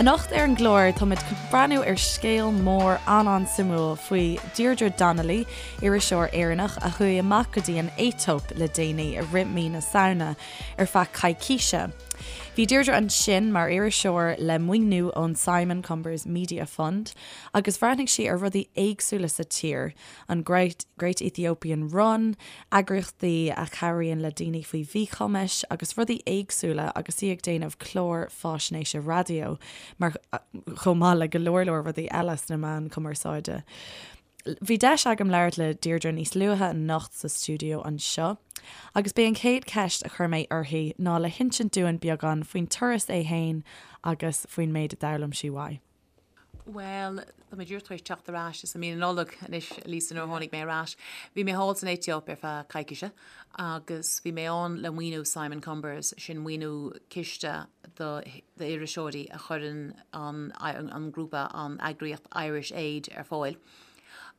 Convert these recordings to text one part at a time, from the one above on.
Anocht ar an gclár táimid chun breathnú ar scéal mór an-an-suimiúil faoi Deirdre Donnelly, iriseoir Éireannach a chuaigh amach go dtí an Aetóip le déanaí i rith mí na Samhna ar feadh coicíse. Bhí Deirdre ansin mar iriseoir le maoiniú ón Simon Cumbers Media Fund agus bhreathnaigh sí ar rudaí éagsúla sa tír, an Great Ethiopian Run, eagraíochtaí a chabhraíonn le daoine faoi mhíchumais agus rudaí éagsúla agus í ag déanamh clár fáisnéise raidió mar chomh maith le go leor leor rudaí eile sna meáin cumarsáide. Bhí deis agam labhairt le Deirdre níos luaithe anocht sa stiúideo anseo agus b'é an chéad cheist a chuir mé uirthi ná le hinsint dúinn beagán faoin turas é fhéin agus faoin méid a d'fhoghlaim sí uaidh. Bhuel, tá mé díreach tar éis teacht ar ais, is i mí na Nollag anois, Lisa, nuair a tháinig mé ar ais. Bhí mé thall san Aetóip ar feadh coicíse agus bhí mé ann le maoiniú Simon Cumbers, sin maoiniú ciste d'iriseoirí a chuireann an an grúpa, an eagraíocht Irish Aid ar fáil.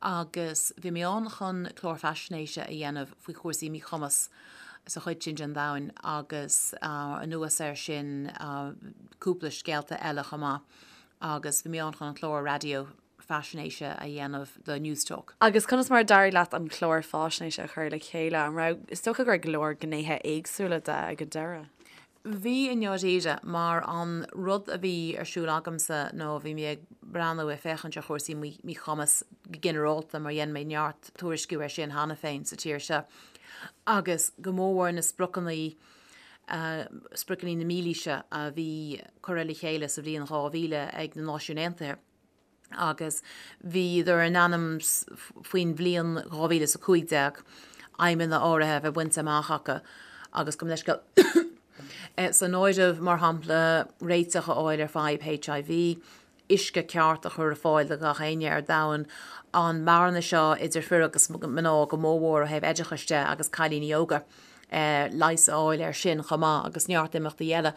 Agus bhí mé ann chun clár faisnéise a dhéanamh faoi chúrsaí míchumas sa chuid sin den domhan agus anuas air sin cúpla scéalta eile chomh maith. agus bhí mé ann chun an clár raidió faisnéise a dhéanamh do Newstalk. Agus conas mar a d'éirigh leat an clár faisnéise a chur le chéile? An raibh, is dócha go raibh go leor gnéithe éagsúla de ag an deireadh? Bhí i ndáiríre, mar an rud a bhí ar siúl agamsa ná bhí mé ag breathnú, ag féachaint ar chúrsaí míchumas go ginearálta mar dhein mé neart tuairisciú air sin cheana féin sa tír seo agus go mórmhór na spriocanna Spriocanna na Mílaoise a bhí curtha le chéile sa bhliain 2000 ag na Náisiúin Aontaithe agus bhíodar in ainm faoin bhliain 2015 aidhmeanna áirithe a bheith bainte amach acu agus gabh mo leithscéal san áireamh, mar shampla, réiteach a fháil ar fadhb HIV, uisce ceart a chur ar fáil do gach éinne ar domhan, an mbearna seo idir fir agus mná go mórmhór ó thaobh oideachais de agus cailíní óga, leigheas a fháil air sin chomh maith agus neart imeachtaí eile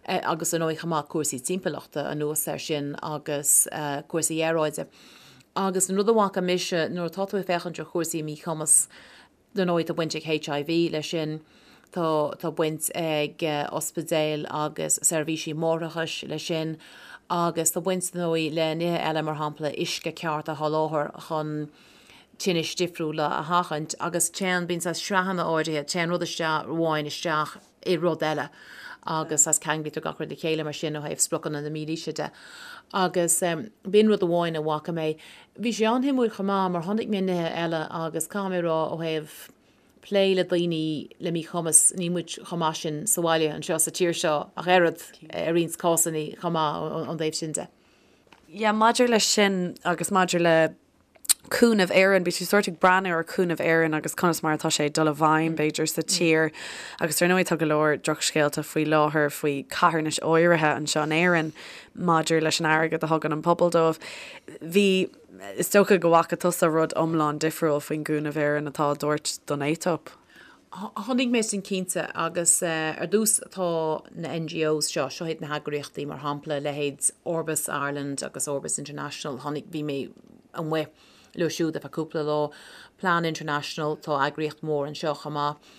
agus ar ndóigh chomh maith cúrsaí timpeallachta anuas air sin agus cúrsaí aeráide. Agus an rud a bhfaca mise nuair atá tú ag féachaint ar chúrsaí míchumas, Dar ndóigh, tá baint ag HIV leis sin, tá tá baint ag ospidéil agus seirbhísí máithreachais leis sin agus tá baint, dar ndóigh, le nithe eile, mar shampla uisce ceart a sholáthar chun tinnis difriúla a sheachaint agus téann, bíonn saghas sraitheanna áirithe, téann rud isteach amháin isteach i rud eile agus saghas ceanglaítear gach rud le chéile mar sin ó thaobh spriocanna na mílaoise de. Agus b'in rud amháin a bhfaca mé. Bhí sé an-shuimiúil chomh maith mar chonaic mé nithe eile agus caithfidh mé a rá ó thaobh plé le daoine le míchumas, níl muid chomh maith sin sa bhaile anseo sa tír seo ach oiread i roinnt cásanna chomh maith ón dtaobh sin de. Yeah, maidir leis sin agus maidir le Cúnamh Éireann, bhí tú sórt ag breathnú ar Cúnamh Éireann agus conas mar atá sé ag dul i bhfeidhm, b'fhéidir, sa tír. Agus ar ndóigh tá go leor drochscéalta faoi láthair faoi carthanais áirithe anseo in Éirinn maidir leis an airgead a thugann an pobal dóibh. Bhí, is dócha go bhfaca tusa rud iomlán difriúil faoin gCúnamh Éireann atá á dtabhairt don Aetóip. Chonaic mé sin cinnte agus ar dtús tá na NGOs seo, seo iad na heagraíochtaí mar shampla leithéid Orbis Ireland agus Orbis International, chonaic, bhí mé amuigh leo siúd ar feadh cúpla lá, Plan International, tá eagraíocht mhór anseo chomh maith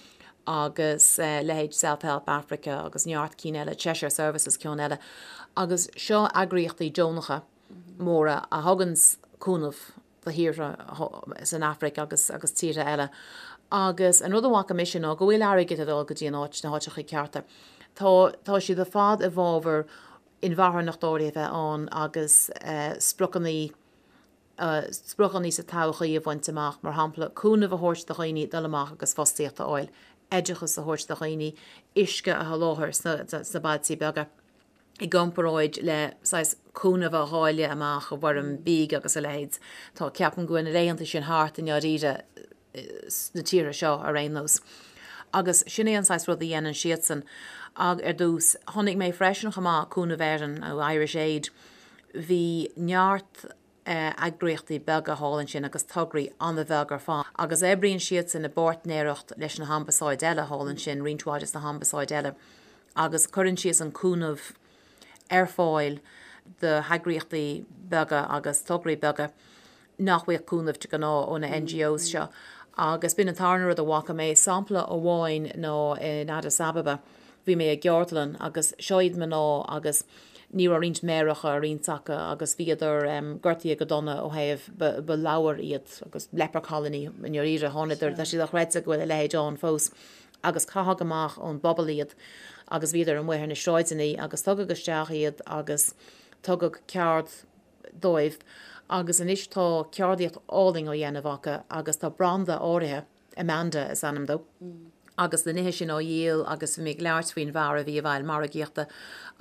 agus leithéid Self Help Africa agus neart cinn eile, Cheshire Services ceann eile agus seo eagraíochtaí deonacha móra a thugann cúnamh do thíortha san Afraic agus agus tíortha eile. Agus an rud a bhfaca mise ná go bhfuil airgead ag dul go dtí an áit, na háiteacha cearta. Tá, tá siad ar fad i bhfabhar inmharthanacht áirithe a bheith ann agus spriocanna, spriocanna sa todhchaí a bhaint amach, mar shampla cúnamh a thabhairt do dhaoine dul amach agus fostaíocht a fháil, oideachas a thabhairt do dhaoine, uisce a sholáthar sna, sna bailtí beaga. i gcomparáid le saghas cúnamh a dháileadh amach i bhfoirm bídh agus a leithéid. Tá, ceapaim go bhfuil na laethanta sin thart i ndáiríre sna tíortha seo ar aon nós. Agus sin é an saghas rud a dhéanann siadsan. Ag ar dtús, chonaic mé freisin chomh maith Cúnamh Éireann nó Irish Aid, bhí neart eagraíochtaí beaga thall ansin agus tograí an-bheag ar fad agus oibríonn siadsan i bpáirtnéireacht leis na hambasáid eile thall ansin, roinnt mhaith des na hambasáid eile agus cuireann siadsan cúnamh ar fáil do heagraíochtaí beaga agus tograí beaga nach bhfaigheadh cúnamh de ghnáth ó na NGOs seo. Agus b'in an tarna rud a bhfaca mé. Sampla amháin ná in Addis Ababa, bhí mé i gceardlann agus seo iad mná agus. Ní raibh roinnt méaracha ar roinnt acu agus bhíodar gortaithe go dona ó thaobh, ba ladhar iad agus leper colony i ndáiríre. Thánadar, tá sé dochreidte go bhfuil a leithéid ann fós, agus caitheadh amach ón bpobal iad agus bhíodar amuigh ar na sráideanna agus tugadh isteach iad agus tugadh ceard dóibh agus anois tá ceardaíocht álainn á dhéanamh acu agus tá branda áirithe, Amanda is ainm dó, agus na nithe sin á dhíol agus bhí mé ag labhairt faoin bhfear a bhí i bhfeighil margaíochta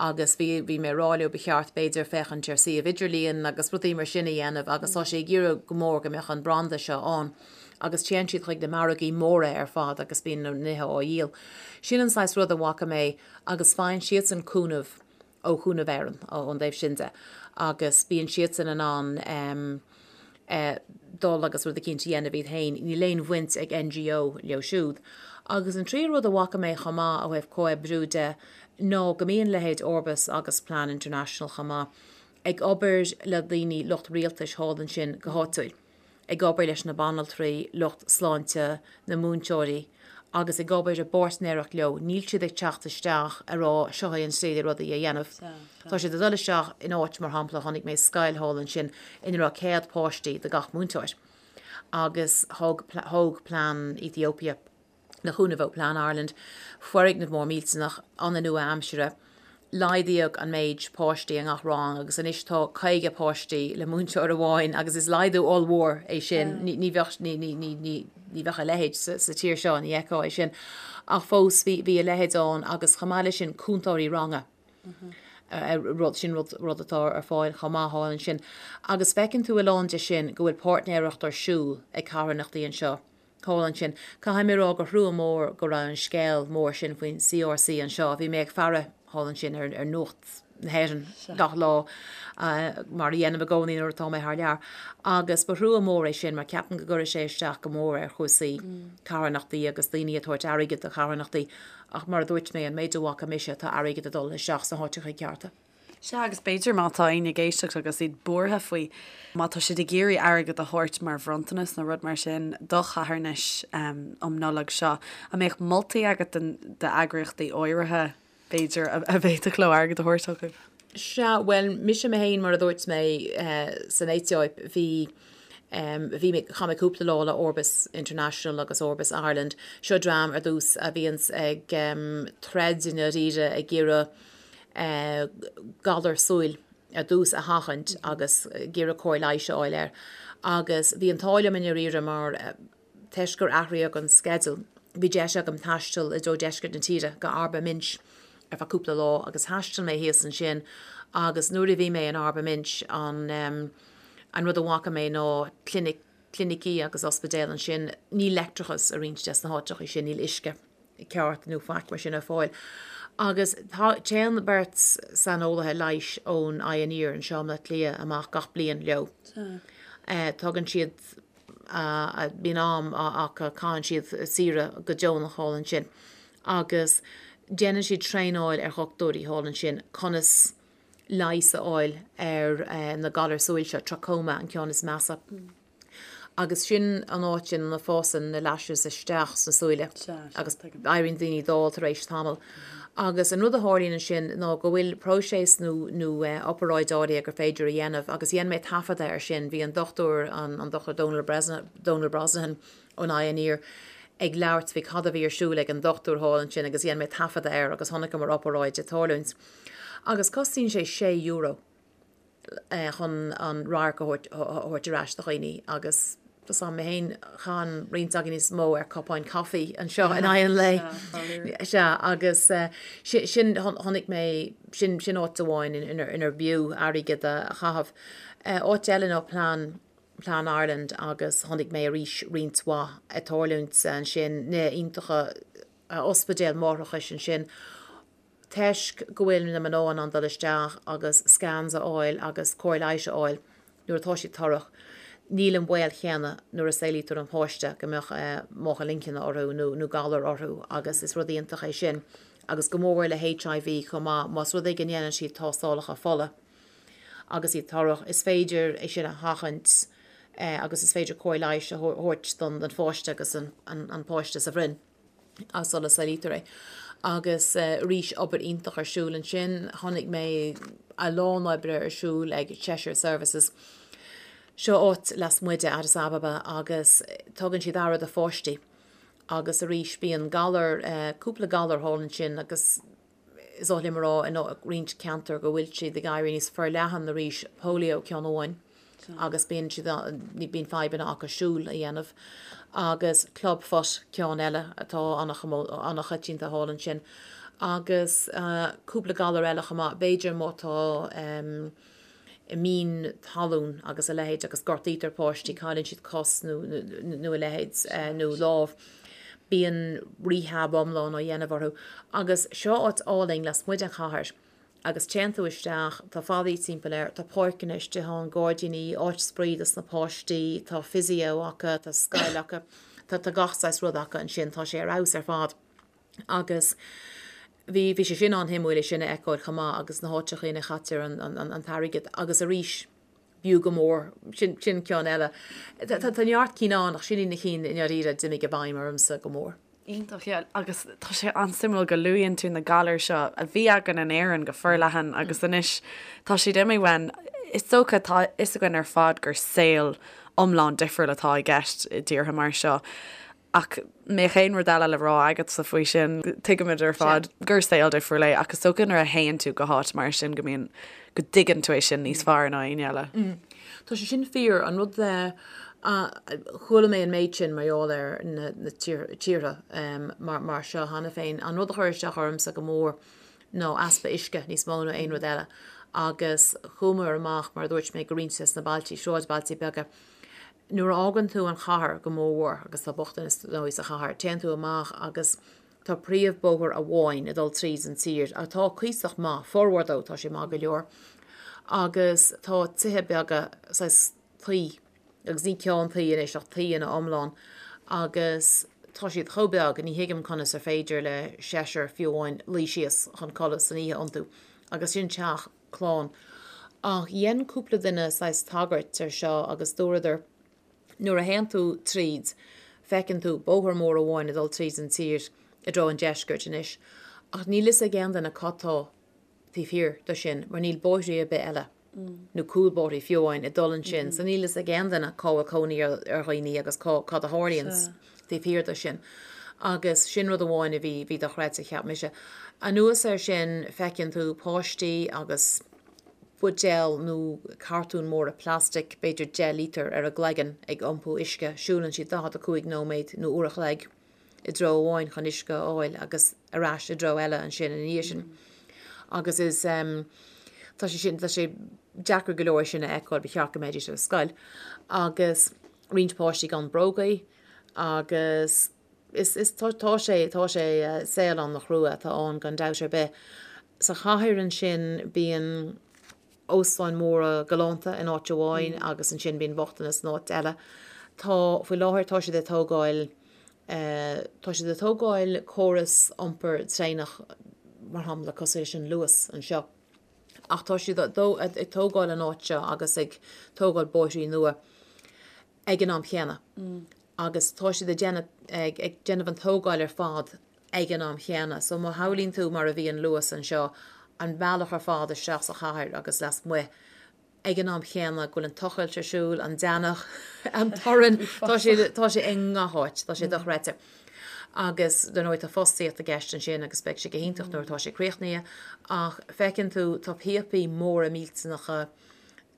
agus bhí, bhí mé ag rá leo ba cheart b'fhéidir féachaint ar suíomh idirlíon agus rudaí mar sin a dhéanamh agus tá sé ag iarraidh go mór go mbeadh an branda seo ann agus téann siad chuig na margaí móra ar fad agus bíonn na nithe á dhíol. Sin an saghas rud a bhfaca mé agus faigheann siadsan cúnamh ó Chúnamh Éireann ón dtaobh sin de agus bíonn siadsan in ann dul agus rud eicínt a dhéanamh iad féin, níl aon bhaint ag NGO leo siúd. Agus an tríú rud a bhfaca mé chomh maith ó thaobh comhoibriú de ná go mbíonn leithéid Orbis agus Plan International chomh maith ag obair le daoine, lucht rialtais thall ansin go háitiúil. ag obair leis na banaltraí, lucht sláinte, na múinteoirí agus ag obair i bpáirtnéireacht leo, níl siad ag teacht isteach ag rá seo é an tslí le rudaí a dhéanamh. Tá siad ag dul isteach in áit, mar shampla, chonaic mé scoil thall ansin ina raibh 100 páistí do gach múinteoir agus thóg, thóg Plan Ethiopia, le cúnamh ó Plan Ireland, foirgneamh mór millteanach, an-nua-aimseartha. Laghdaíodh an méid páistí i ngach rang agus anois tá 50 páistí le múinteoir amháin agus is laghdú ollmhór é sin. Ní bheadh, ní, ní, ní, ní, ní bheadh a leithéid sa, sa tír seo, ní fheicfeá é sin. Ach fós bhí, bhí a leithéid ann agus chomh maith leis sin cúntóirí ranga. Rud, sin rud, rud atá ar fáil chomh maith thall ansin. Agus feiceann tú a lán de sin go bhfuil páirtnéireacht ar siúl ag carthanachtaí anseo. Thall ansin. Caithfidh mé a rá gur thrua mór go raibh an scéal mór sin faoin CRC anseo. Bhí mé ag faire thall ansin ar Nuacht na hÉireann gach lá, mar a dhéanaim i gcónaí nuair atá mé thar lear, agus ba thrua mór é sin mar ceapaim go gcuirfidh sé isteach go mór ar chúrsaí carthanachtaí agus daoine ag tabhairt airgid do charthanachtaí ach mar a dúirt mé, an méid a bhfaca mise, tá airgead ag dul isteach sna háiteacha cearta. Sea, agus b'fhéidir má tá éinne ag éisteacht agus iad buartha faoi, má tá siad ag iarraidh airgead a thabhairt mar bhronntanas nó rud mar sin do charthanais um Nollaig seo, an mbeadh moltaí agat d'eagraíochtaí áirithe, b'fhéidir, a bhféadfadh leo airgead a thabhairt chucu? Sea, bhuel, mise mé féin, mar a dúirt mé, san Aetóip, bhí, bhí mé, chaith mé cúpla lá le Orbis International agus Orbis Ireland. Seo dream, ar dtús, a bhíonns ag troid i ndáiríre ag iarraidh, galar súil ar dtús a sheachaint agus ag iarraidh cóir leighis a fháil air. Agus bhí an t-ádh liom i ndáiríre mar toisc gur athraíodh an sceideal, bhí deis agam taisteal i dtreo deisceart na tíre go Arba Minch ar feadh cúpla lá agus thaistil mé thíos ansin agus nuair a bhí mé in Arba Minch an an rud a bhfaca mé ná clinic, clinicí agus ospidéal ansin, níl leictreachas i roinnt des na háiteacha sin, níl uisce. ceart nó faic mar sin ar fáil. Agus téann beirt saineolaithe leighis ón Eye and Ear anseo i mBaile Átha Cliath amach gach bliain leo. Tugann siad, bíonn am acu, caitheann siad saoire go deonach thall ansin agus déanann siad traenáil ar dhochtúirí thall ansin conas leigheas a fháil ar na galair súil seo, trachoma an ceann is measa. Agus sin an áit ina bhfásann na lashes isteach sna súile agus éiríonn daoine dall tar éis tamaill. Agus an rud a tharlaíonn ansin ná go bhfuil próiseas nó nó oparáid áirithe gur féidir a dhéanamh agus dhein mé taifeadadh air sin, bhí an dochtúir, an Dochtúir Donal Donal Brosnahan ón Eye and Ear ag labhairt faoi cad a bhí ar siúl ag an dochtúir thall ansin agus dhein mé taifeadadh air agus chonaiceamar oparáid ag tarlúint. Agus cosnaíonn sé sé euro. chun an radharc a thabhairt ar ais do dhaoine agus tá 's agam mé féin, caitheann roinnt againn níos mó ar cupáin caife anseo in aghaidh an lae. Sea, agus sin, chonaic mé, sin, sin áit amháin inar b'fhiú airgead a chaitheamh. Áit eile ná Plan, Plan Ireland agus chonaic mé arís roinnt mhaith ag tarlúint ansin, nithe iontacha, ospidéal máithreachais ansin. Toisc go bhfuil na mná in ann dul isteach agus scans a fháil agus cóir leighis a fháil nuair atá siad torrach, níl an baol chéanna nuair a saolaítear an páiste go mbeadh máchail inchinne orthu nó galar orthu agus is rud iontach é sin agus go mór le HIV chomh maith, más rud é go ndéanann siad tástálacha fola agus iad torrach, is féidir é sin a sheachaint agus is féidir cóir leighis a thabhairt don pháiste agus an páiste sa bhroinn. sula saolaítear é. Agus arís, obair iontach ar siúl ansin. Chonaic mé a lán oibre ar siúl ag Cheshire Services. Seo áit lasmuigh de Addis Ababa agus tugann siad aire do pháistí agus arís bíonn galar, cúpla galar thall ansin agus is oth liom a rá i roinnt ceantar go bhfuil siad ag éirí níos forleathan arís, polio ceann amháin agus bíonn siad, bíonn fadhbanna acu siúl a dhéanamh agus club foot ceann eile atá an-choitianta thall ansin agus cúpla galar eile chomh maith, b'fhéidir má tá mine talún agus a leithéid agus gortaítear páistí, cailleann siad cos nó nó a leithéid nó lámh, bíonn rehab iomlán á dhéanamh orthu. Agus seo áit álainn lasmuigh den chathair agus téann tú isteach, tá fallaí timpeall air, tá páirceanna istigh ann, gairdíní, áit spraoi dos na páistí, tá physio acu, tá scoil acu, tá tá gach saghas rud acu ansin, tá sé ar fheabhas ar fad. Agus bhí, bhí sé sin an-shuimiúil é sin a fheiceáil chomh maith agus na háiteacha ina chaitear an, an, an t-airgead agus arís b'fhiú go mór, sin, sin ceann eile. Tá, tá, tá neart cinn ann ach sin iad na cinn i ndáiríre a d'imigh i bhfeidhm ormsa go mór. Iontach, yeah. Agus tá sé an-suimiúil go luaíonn tú na galair seo a bhí againn in Éirinn go forleathan agus anois tá siad imithe uainn. Is dócha, tá a fhios againn ar fad gur saol iomlán difriúil atá i gceist i dtíortha mar seo. Ach mbeadh aon rud eile le rá agatsa faoi sin? Tuigimid ar fad gur saol difriúil é ach is dócha nuair a théann tú go háit mar sin go mbíonn, go dtuigeann tú é sin níos fearr ná éinne eile. Tá sé sin fíor. An rud a chuala mé an méid sin mar gheall ar na tíortha mar seo cheana féin, an rud a chuir isteach ormsa go mór ná easpa uisce níos mó ná aon rud eile. Agus chuamar amach, mar a dúirt mé, go roinnt des na bailtí, sráidbhailtí beaga. Nuair a fhágann tú an chathair go mórmhór, agus tá bochtanas dar ndóigh sa chathair, téann tú amach agus tá príomhbóthar amháin ag dul tríd an tír, atá cuíosach maith, formhór dó, tá sé maith go leor, agus tá tithe beaga, saghas tuí, agus ní ceann tuí anois ach tuí ina iomlán, agus tá siad chomh beag, ní thuigim conas ar féidir le seisear fiú amháin luí síos chun codladh san oíche iontu, agus sin teach. clann. Ach dhein cúpla duine saghas tagairt ar seo agus dúradar, nuair a théann tú tríd, feiceann tú bóthar mór amháin ag dul tríd an tír i dtreo an deiscirt anois, ach níl fhios ag aon duine cad tá taobh thiar de sin mar níl bóithrí ar bith eile, nó cúlbhóithrí fiú amháin, ag dul ansin, so níl fhios ag aon duine cá bhfuil cónaí ar dhaoine agus cá, cad a tharlaíonn taobh thiar de sin. Agus sin rud amháin a bhí, bhí dochreidte, cheap mise. Anuas air sin, feiceann tú páistí agus buidéal nó cartún móra plastic, b'fhéidir 10 lítear, ar a gcloigeann ag iompú uisce. Siúlann siad 45 nóiméad nó uair a chloig i dtreo amháin chun uisce a fháil agus ar ais i dtreo eile ansin ina dhiaidh sin. Agus is, tá sé sin, tá sé deacair go leor é sin a fheiceáil, ba cheart go mbeidís ar scoil. Agus roinnt páistí gan brógaí. Agus is, is, tá, tá sé, tá sé, saol an-chrua atá ann gan dabht ar bith. Sa chathair ansin bíonn óstáin mhóra galánta in áit amháin agus ansin bíonn bochtanas in áit eile. Tá, faoi láthair tá siad ag tógáil, tá siad ag tógáil córas iompair traenach mar shampla cosúil leis an Luas anseo. Ach tá siad ag tógáil an áit seo agus ag tógáil bóithrí nua. ag an am chéanna agus tá siad ag déanamh, ag déanamh an tógáil ar fad ag an am chéanna. So má shamhlaíonn tú mar a bhí an Luas anseo, an bealach ar fad isteach sa chathair agus lasmuigh, ag an am chéanna go bhfuil an tochailt ar siúl, an deannach, an torann, tá sé, tá sé i ngach áit, tá sé dochreidte. Agus dar ndóigh tá fostaíocht i gceist ansin agus beidh sé go hiontach nuair atá sé críochnaithe ach feiceann tú, tá píopaí móra millteanacha,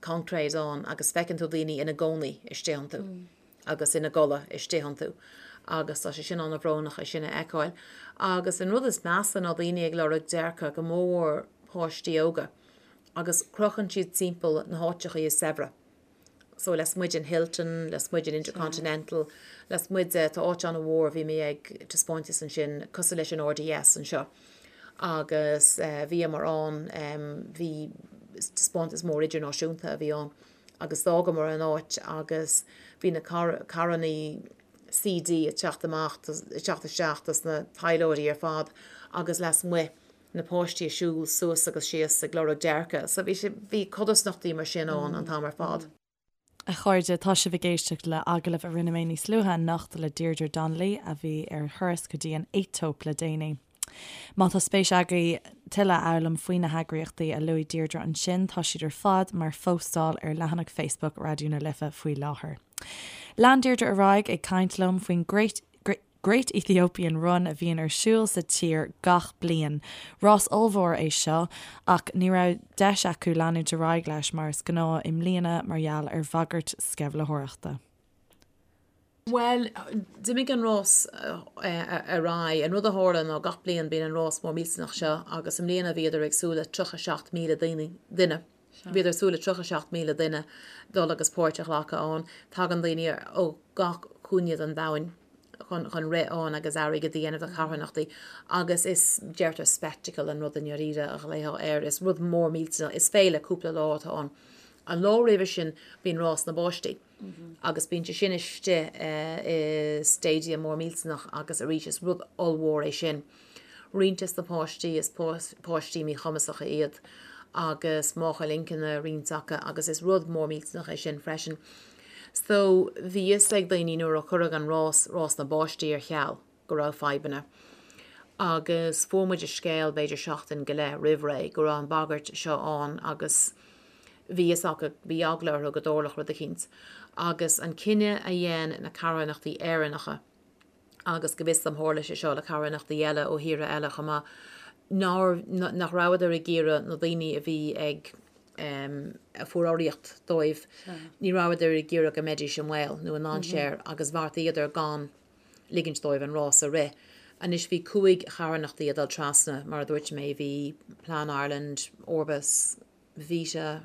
concrete ann agus feiceann tú daoine ina gcónaí istigh iontu agus ina gcodladh istigh iontu agus tá sé sin an-bhrónach é sin a fheiceáil. Agus an rud is measa ná daoine ag lorg déirce, go mórmhór páistí óga, agus crochann siad timpeall na háiteachaí is saibhre. So lasmuigh den Hilton, lasmuigh den Intercontinental, lasmuigh de, tá áit an-mhór, bhí mé ag taispeántas ansin, cosúil leis an RDS anseo. agus bhíomar ann, bhí taispeántas mór idirnáisiúnta a bhí ann agus d'fhágamar an áit agus bhí na carrannaí CD ag teacht amach, ag teacht isteach dos na taidhleoirí ar fad agus lasmuigh na páistí ag siúl suas agus síos ag lorg déirce. So bhí sé, bhí codarsnachtaí mar sin ann an t-am ar fad. A chairde, tá sibh ag éisteacht le agallamh a rinne mé níos luaithe anocht le Deirdre Donnelly, a bhí ar thuras go dtí an Aetóip le déanaí. Má tá spéis agaibh tuilleadh a fhoghlaim faoi na heagraíochtaí a luaigh Deirdre ansin, tá siad ar fad mar phóstáil ar leathanach Facebook Raidió na Life faoi láthair. Lean Deirdre ar aghaidh ag caint liom faoin Great Great Ethiopian Run a bhíonn ar siúl sa tír gach bliain. Rás ollmhór é seo ach ní raibh deis acu leanúint ar aghaidh leis mar is gnáth i mbliana mar gheall ar bhagairt sceimhlitheoireachta. Bhuel, d'imigh an rás ar aghaidh. An rud a tharla ná gach bliain bíonn an rás mór millteanach seo agus i mbliana bhíodar ag súil le 37,000 daoine, duine. Bhíodar ag súil le 37,000 duine dul agus páirt a ghlacadh ann. Tagann daoine ó gach cúinne den domhain chun chun rith ann agus airgead a dhéanamh do charthanachtaí agus is, deirtear spectacle an rud i ndáiríre a ghlaofá air. Is rud mór millteanach, is féile cúpla lá atá ann. An lá roimhe sin bíonn rás na bpáistí. Agus bíonn sé sin istigh i stadium mór millteanach agus arís is rud ollmhór é sin. Roinnt des na páistí, is páistí míchumasacha iad agus máchail inchinne roinnt acu agus is rud mór millteanach é sin freisin. So bhí fhios ag daoine nuair a cuireadh an rás, rás na bpáistí ar ceal, go raibh fadhbanna. Agus fuair muid an scéal b'fhéidir seachtain go leith roimh ré go raibh an bhagairt seo ann agus bhí fhios acu, bhí eagla orthu go dtarlódh rud eicínt. Agus an cinneadh a dhein na carthanachtaí Éireannacha, agus go bhfios dom tharla sé seo le carthanachtaí eile ó thíortha eile chomh maith, nár, nach rabhadar ag iarraidh na daoine a bhí ag, a fuair urraíocht dóibh, ní rabhadar ag iarraidh go mbeidís i mbaol nó i ndainséar agus bheartaíodar gan ligint dóibh an rás a rith. Anois bhí 5 charthanachtaí ag dul trasna, mar a dúirt mé, bhí Plan Ireland, Orbis, Vita,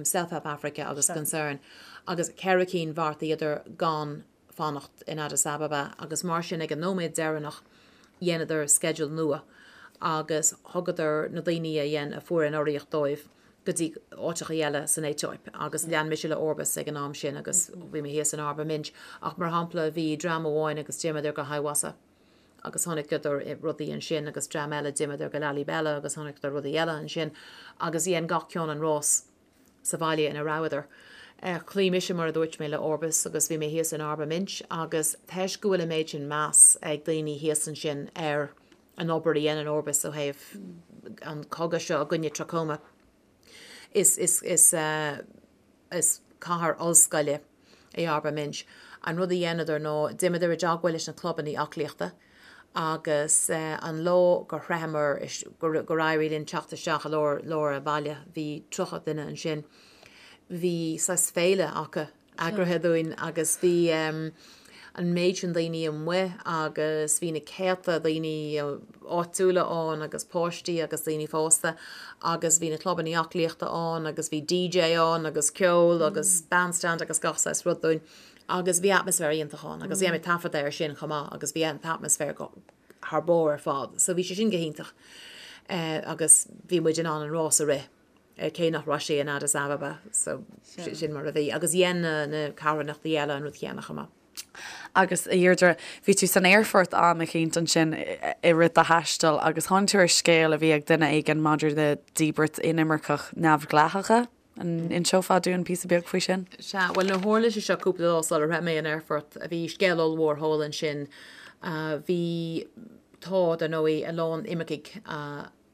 Self Help Africa agus Concern, agus ceithre cinn bheartaíodar gan fanacht in Addis Ababa agus mar sin ag an nóiméad deireanach dheineadar sceideal nua agus thugadar na daoine a dhein, a fuair an urraíocht dóibh, go dtí áiteacha eile san Aetóip agus lean mise le Orbis ag an am sin agus bhí mé thíos in Arba Minch ach mar shampla bhí dream amháin agus d'imíodar go Hawassa agus chonaiceadar rudaí ansin agus dream eile d'imíodar go Lalibela agus chonaiceadar rudaí eile ansin agus dhein gach ceann an rás sa bhaile ina rabhadar. Chloígh mise mar a dúirt mé le Orbis agus bhí mé thíos in Arba Minch agus toisc go bhfuil an méid sin meas ag daoine thíos ansin ar an obair a dhéanann Orbis ó thaobh an cogadh seo i gcoinne trachoma. Is, is, is, is cathair ollscoile é Arba Minch. An rud a dheineadar ná d'imíodar i dteagmháil leis na clubannaí aclaíochta agus an lá gur shroicheamar, gur, gur éirigh linn teacht isteach i lár, lár an bhaile, bhí 30 duine ansin, bhí saghas féile acu eagraithe dúinn agus bhí an méid sin daoine amuigh agus bhí na céadta daoine áitiúla ann agus páistí agus daoine fásta agus bhí na clubannaí aclaíochta ann agus bhí DJ ann agus ceol agus bandstand agus gach saghas rud dúinn agus bhí atmaisféar iontach ann agus dhein mé taifeadadh air sin chomh maith agus bhí an t-atmaisféar go thar barr ar fad so bhí sé sin go hiontach agus bhí muid in ann an rás a rith. cé nach raibh sé in Addis Ababa, so sin mar a bhí. Agus dhein na carthanachtaí eile an rud céanna chomh maith. Agus, a Dheirdre, bhí tú san aerfort am eicínt ansin i rith do thaistil agus tháinig tú ar scéal a bhí ag duine éigin maidir le díbirt inimirceach neamhdhleathacha. An inseofá dúinn píosa beag faoi sin? Sea, bhuel, nuair a tharla sé seo cúpla lá sular shroich mé an aerfort, bhí scéal ollmhór thall ansin. Bhí, tá, dar ndóigh, a lán imircigh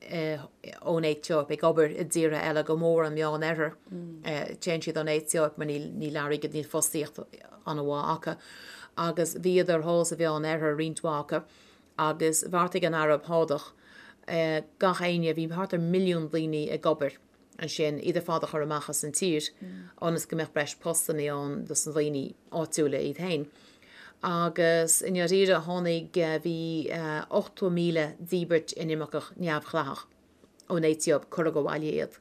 ón Aetóip ag obair i dtíortha eile, go mór an Meán Oirthear. Téann siad ón Aetóip mar níl airgead, níl fostaíocht an-mhaith acu. Agus bhíodar thall sa Mheán Oirthear, roinnt mhaith acu, agus bheartaigh an Araib Shádach gach éinne, bhí thart ar mhilliún daoine ag obair ansin, iad ar fad a chur amach as an tír ionas go mbeadh breis postannaí ann dos na daoine áitiúla iad féin. Agus i ndáiríre tháinig, bhí 80,000 díbirt inimirceach neamhdhleathach ón Aetóip, cuireadh abhaile iad.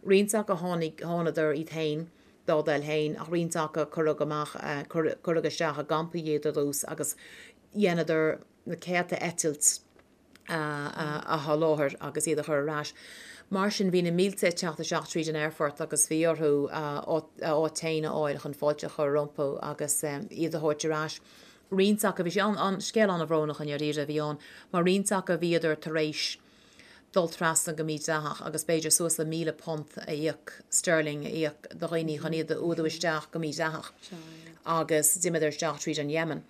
Roinnt acu tháinig, thánadar iad féin dá dtoil féin ach roinnt acu cuireadh amach, cuireadh isteach i gcampaí iad ar dtús agus dheineadar na céadta eitilt a sholáthar agus iad a chur ar ais. Mar sin, bhí na mílte ag teacht isteach tríd an aerfort agus bhí orthu a áit féin a fháil chun fáilte a chur rompu agus iad a thabhairt ar ais. Roinnt acu, bhí sé an, scéal an-bhrónach i ndáiríre a bhí ann, mar roinnt acu bhíodar tar éis dul trasna go mídhleathach agus b'fhéidir suas le £1,000 a íoc, sterling a íoc do dhaoine chun iad a fhuadú isteach go mídhleathach agus d'imíodar isteach tríd an Yemen.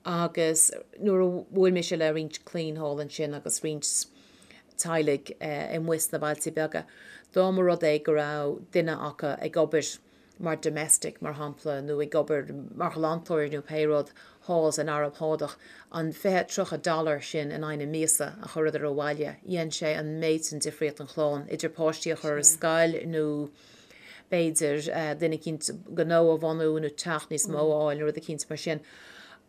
Agus nuair a bhuail mise le roinnt clainn thall ansin agus roinnt teaghlaigh amuigh sna bailte beaga, dá mba rud é go raibh duine acu ag obair mar domestic, mar shampla, nó ag obair mar ghlantóir nó pé rud thall san Araib Shádach, an 20, 30 dollar sin in aghaidh na míosa a chuireadar abhaile, dhein sé an méid sin difríocht don chlann, idir páistí a chur ar scoil nó b'fhéidir duine eicínt gnó a bhunú nó teach níos mó a fháil nó rud eicínt mar sin.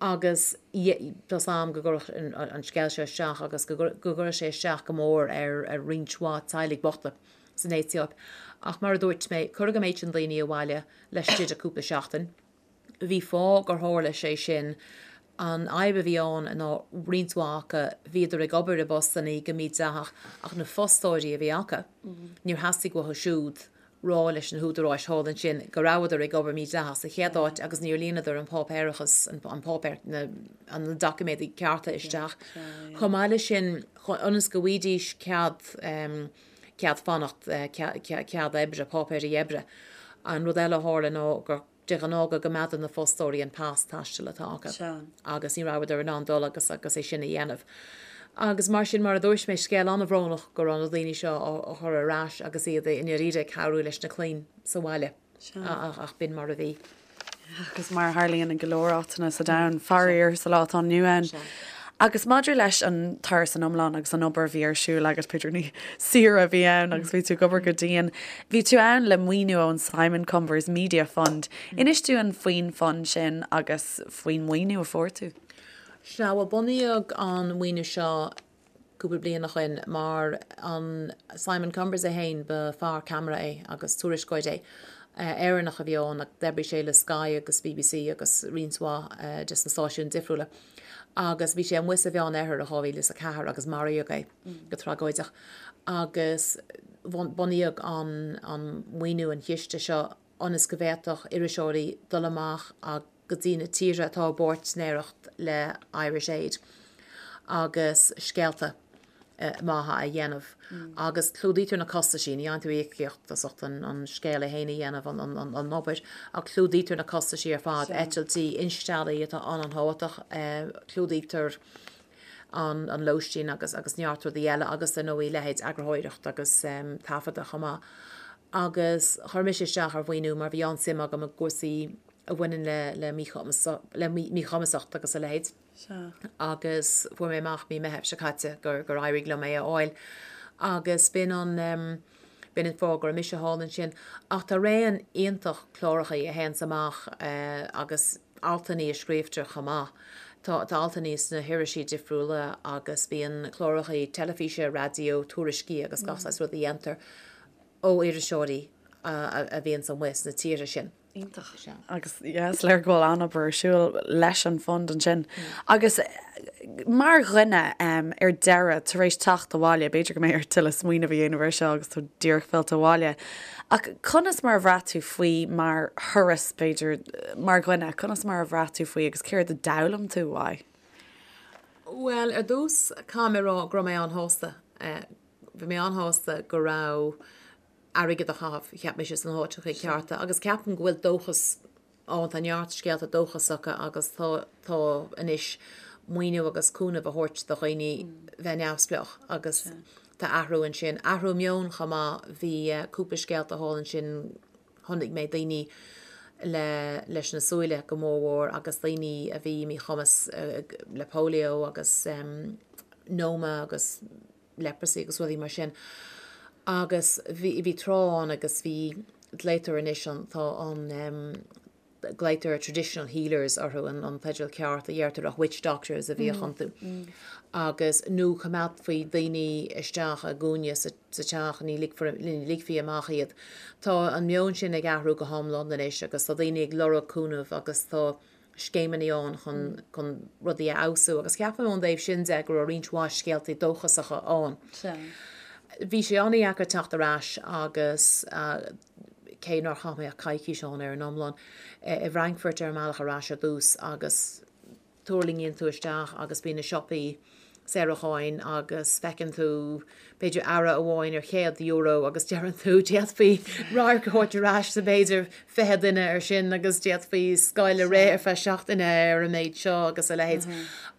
Agus tá's a'm go gcuirfeadh an scéal seo isteach agus go gcuirfeadh sé isteach go mór ar roinnt mhaith teaghlaigh bochta san Aetóip. Ach mar a dúirt mé, cuireadh an méid sin daoine abhaile laistigh de cúpla seachtain. Bhí fáth gur tharla sé sin. An fhadhb a bhí ann ná roinnt mhaith acu, bhíodar ag obair i bpostannaí go mídhleathach ach na fostóirí a bhí acu, níor theastaigh uathu siúd rá leis na húdaráis thall ansin go rabhadar ag obair mídhleathach sa chéad áit agus níor líonadar an páipéarachas, an páipéar, na doiciméadaí cearta isteach. Chomh maith leis sin, ionas go bhfaighidís cead, cead fanacht, cead oibre, páipéirí oibre, an rud eile a tharla ná gur de ghnáth go gcoimeádann na fostóirí an pas taistil atá acu agus ní rabhadar in ann dul agus agus é sin a dhéanamh. Agus mar sin, mar a dúirt mé, scéal an-bhrónach go raibh na daoine seo á chur ar ais agus iad i ndáiríre ag cabhrú leis na clainn sa bhaile. Ach b'in mar a bhí. Agus mar a tharlaíonn i go leor áiteanna sa domhan, faraor, sa lá atá inniu ann. Agus maidir leis an turas san iomlán agus an obair a bhí ar siúl agat, b'fhéidir ní saoire a bhí ann agus bhí tú ag obair go dian, bhí tú ann le maoiniú ón Simon Cumbers Media Fund. Inis dúinn faoin fund sin agus faoin maoiniú a fuair tú. Sea, bhuel bunaíodh an maoiniú seo cúpla bliain ó shoin mar an Simon Cumbers é féin, ba fear ceamara é agus tuairisceoir é. Éireannach a bhí ann ach d'oibrigh sé le Sky agus BBC agus roinnt mhaith des na stáisiúin difriúla. Agus bhí sé amuigh sa Mheán Oirthear i 2004 agus maraíodh é go tragóideach. Agus bunaíodh an an maoiniú, an chiste seo ionas go bhféadfadh iriseoirí dul amach agus go dtí na tíortha atá i bpáirtnéireacht le Irish Aid agus scéalta maithe a dhéanamh agus clúdaítear na costaisí, ní fhaigheann tú íocaíocht as ucht an scéal é féin a dhéanamh, an obair, ach clúdaítear na costaisí ar fad, eitiltí, insteallaí atá an-an-thábhachtach, clúdaítear an lóistín agus agus neart rudaí eile agus ar ndóigh leithéid eagarthóireacht agus taifeadadh chomh maith. Agus chuir mise isteach ar mhaoiniú mar bhí an-suim agam i gcúrsaí a bhaineann le le le míchumasacht agus a leithéid. Agus fuair mé amach mí Meithimh seo caite gur gur éirigh liom é a fháil. Agus b'in an b'in an fáth go raibh mise thall ansin. Ach tá raon iontach clárachaí a théanns amach agus altannaí a scríobhtar chomh maith. Tá tá altannaí sna hirisí difriúla agus bíonn clárachaí teilifíse, raidió, tuairiscí agus gach saghas rud a dhéantar ó iriseoirí a bhíonns amuigh sna tíortha sin. Iontach. Agus yeah, is léir go bhfuil an-obair ar siúl leis an fund ansin. Agus mar dhuine ar deireadh, tar éis teacht abhaile, b'fhéidir go mbeidh ort tuilleadh smaoineamh a dhéanamh air seo agus tú díreach fillte abhaile, ach conas mar a bhraith tú faoi mar thuras, b'fhéidir, mar dhuine, conas mar a bhraith tú faoi agus céard a d'fhoghlaim tú uaidh? Bhuel, ar dtús, caithfidh mé a rá go raibh mé an-shásta. Bhí mé an-shásta go raibh airgead á chaitheamh, cheap mise, sna háiteacha cearta agus ceapaim go bhfuil dóchas ann, tá neart scéalta dóchasacha agus tá, tá anois maoiniú agus cúnamh á thabhairt do dhaoine bheith neamhspleách agus tá athrú ansin. Athrú meoin chomh maith, bhí cúpla scéalta thall ansin, chonaic mé daoine le, leis na súile go mórmhór agus daoine a bhí míchumas le polio agus noma agus leprosy agus rudaí mar sin. Agus bhí, bhí tráth ann agus bhí, glaoitear anois an, tá an em, glaoitear traditional healers orthu, an, an teideal ceart a dheirtear ach witch doctors a bhíodh iontu. Agus nó choimeádfaí daoine isteach i gcúinne sa, sa teach, ní ligfear, ní ligfí amach iad. Tá an meon sin ag athrú go hiomlán anois agus tá daoine ag lorg cúnamh agus tá, scéimeanna ann chun chun rudaí a fheabhsú agus ceapaim ón dtaobh sin de go raibh roinnt mhaith scéaltaí dóchasacha ann. Bhí sé an-dheacair teacht ar ais agus cé nár chaith mé ach coicís ann ar an iomlán, i bhFrankfurt ar an mbealach ar ais ar dtús agus tuirlingíonn tú isteach agus bíonn na siopaí. Saoracháin agus feiceann tú b'fhéidir earra amháin ar €100 agus deireann tú d'fhéadfaí radharc a thabhairt ar ais do b'fhéidir 20 duine ar sin agus d'fhéadfaí scoil a rith ar feadh seachtaine ar an méid seo agus a leithéid.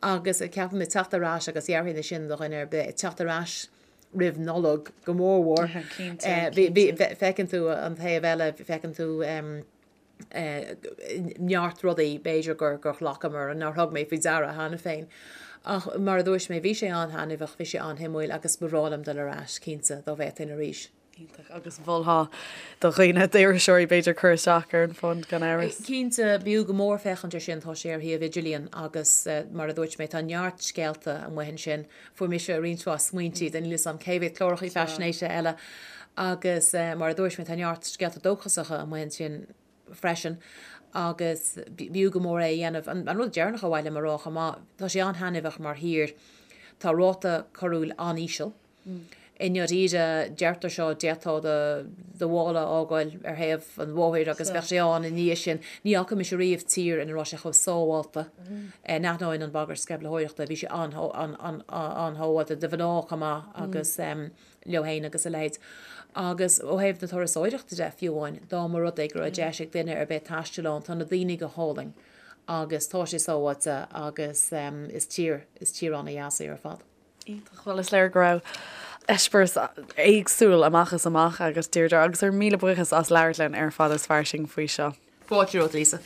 Agus ceapaim ag teacht ar ais agus déarfainn é sin do dhuine ar bith, ag teacht ar ais roimh Nollaig go mórmhór. Feiceann tú an taobh eile, feiceann tú neart rudaí b'fhéidir gur ghlacamar, nár thug mé faoi deara cheana féin. Ach mar a dúirt mé, bhí sé an-thaitneamhach, bhí sé an-shuimiúil agus ba bhreá liom dul ar ais, cinnte, dá bhféadfainn arís. Iontach. Agus mholfá do dhaoine, d'iriseoirí b'fhéidir, cur isteach ar an fund gan amhras? Cinnte, b'fhiú go mór féachaint air sin, tá sé ar shuíomh idirlíon agus mar a dúirt mé, tá neart scéalta amuigh ansin. Fuair mise roinnt mhaith smaointe do níl 'fhios a'm cé mhéad clárachaí faisnéise eile agus mar a dúirt mé tá neart scéalta dóchasacha amuigh ansin freisin agus b'fhiú go mór é a dhéanamh. An rud deireanach ar mhaith liom a rá chomh maith, tá sé an-thaitneamhach mar thír, tá ráta coiriúil an-íseal. I ndáiríre, deirtear seo, d'fhéadfá do mhála a fhágáil ar thaobh an bhóthair agus bheadh sé ann ina dhiaidh sin. Ní fhaca mise riamh tír ina raibh sé chomh sábhálta. In ainneoin an bhagairt sceimhlitheoireachta, bhí sé an-shábháilte do mhná chomh maith agus leo féin agus a leithéid. Agus ó thaobh na turasóireachta de, fiú amháin, dá mba rud é go raibh deis ag duine ar bith taisteal ann, tá na daoine go hálainn agus tá sé sábháilte agus is tír, is tír an-dheas í ar fad. Iontach. Bhuel, is léir go raibh eispéireas éagsúil amach is amach agat, Deirdre, agus ár míle buíochas as labhairt linn ar Fada is Fairsing faoi seo. Fáilte romhat, Lisa.